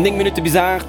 9 Minutte bis 8.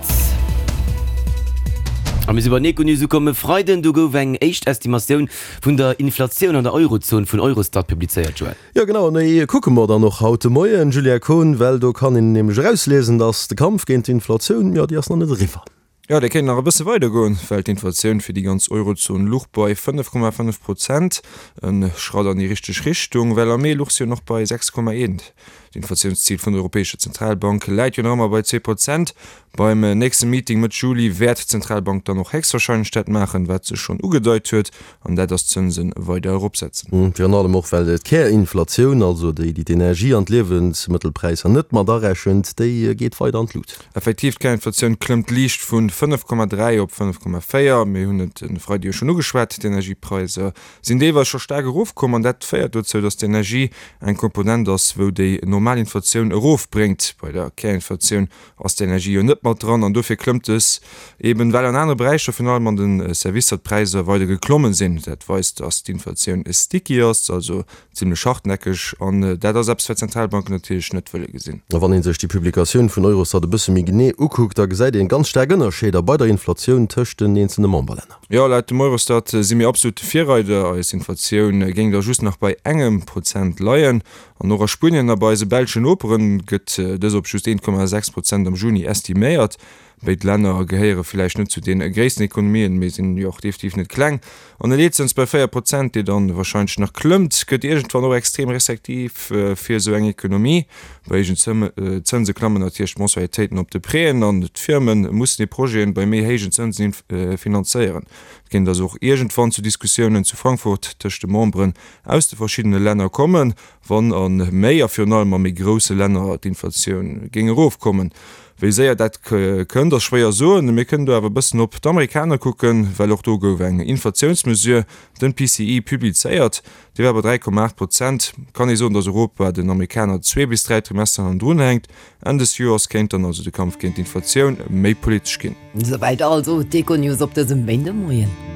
A mir si bei den Econews ukomm. E Freiden, do gouf eng éischt Estimatioun vun der Inflatioun an der Eurozon vun Eurostat publizéiert, Joël. Jo genau, an déi kucke mer dann och haut de Moien, Julia Kohn, well do kann een nämlech erausliesen, datt de Kampf géint d'Inflatioun, jo déi ass nach net eriwwer. Jo, dee kéint nach e bësse weider goen, well d'Inflatioun fir déi ganz Eurozon luch bei 5,5 Prozent, e Schratt an déi richteg Richtung, well am Mee luch se jo nach bei 6,1. D'Inflatiounszil vun der Europäescher Zentralbank läit jo nach ëmmer bei 2 Prozent. Beim nächste Meeting Mëtt Juli wäert d'Zentralbank dann och héchstwarscheinlech dat maachen, wat se schonn ugedeit huet, An dat ass d'Zënse weider eropsetzen. Virun allem och, well d'Kärinflatioun, also déi, déi d'Energie an d'Liewensmëttelpräisser net mat arechent, déi geet weider an d'Lut. Effektiv, d'Kärinflatioun klëmmt liicht vu 5,3 op 5,4. Mir hunn et e Freide jo schonn ugeschwat, d'Energiepreiser sinn deelweis scho staark erofkomm an dat féiert dozou, datt d'Energie eng Komponent ass, wou déi normal Inflatioun erofbréngt. Bei der Kärinflatioun ass d'Energie jo net mat dran an dofir klëmmt dës eben, well an anere Beräicher, virun allem an de Servicer, d'Präisser weider geklommen sinn. Dat weist, dass d'Inflatioun sticky ass, also zimlech hartnäckeg an dat ass eppes, wat d'Zentralbanken natierlech net wëlle gesinn. A wann ee sech déi Publikatioun vun Eurostat e bësse méi genee ukuckt, da gesäit een ganz staark Ënnerscheeder bei der Inflatioun tëscht den eenzelne Memberlänner. Jo, laut dem Eurostat si mir absolut de Virreider. Eis Inflatioun géing da just nach bei engem Prozent leien. An och a Spuenien a bei eise belschen Noperen gëtt dës op just 1,6 Prozent am Juni estiméiert. Béid Länner gehéiere villäicht net zu de gréissten Ekonomien, mee sinn jo och definitiv net kleng. An e Leetzëns bei 4 Prozent, dee dann warscheinlech nach klëmmt, gëtt iergendwann och extrem restriktiv fir esou eng Ekonomie. Bei héijen Zënse klammen natierlech d'Mensualitéiten op de Prêten an d'Firme mussen hir Projeten bei méi héijen Zënsen finanzéieren. Et kéint also och iergendwann zu Diskussiounen zu Frankfurt tëscht de Memberen aus de verschiddene Länner kommen, wann a méi a virun allem a méi grousse Länner d'Inflatioun géing erofkommen. Wéi séier dat kënnt, ass schwéier soen. Mir kënnen do awer e bëssen op d'Amerikaner kucken, well och do gouf eng Inflatiounsmesure, den PCE, publizéiert. Déi war bei 3,8 Prozent. Kann ee soen, datt Europa den Amerikaner zwee bis dräi Trimester hannendrun hänkt. Enn des Joers kéint dann also de Kampf géint d'Inflatioun méi politesch ginn. Souwäit also d'Econews op dësem Méindemoien.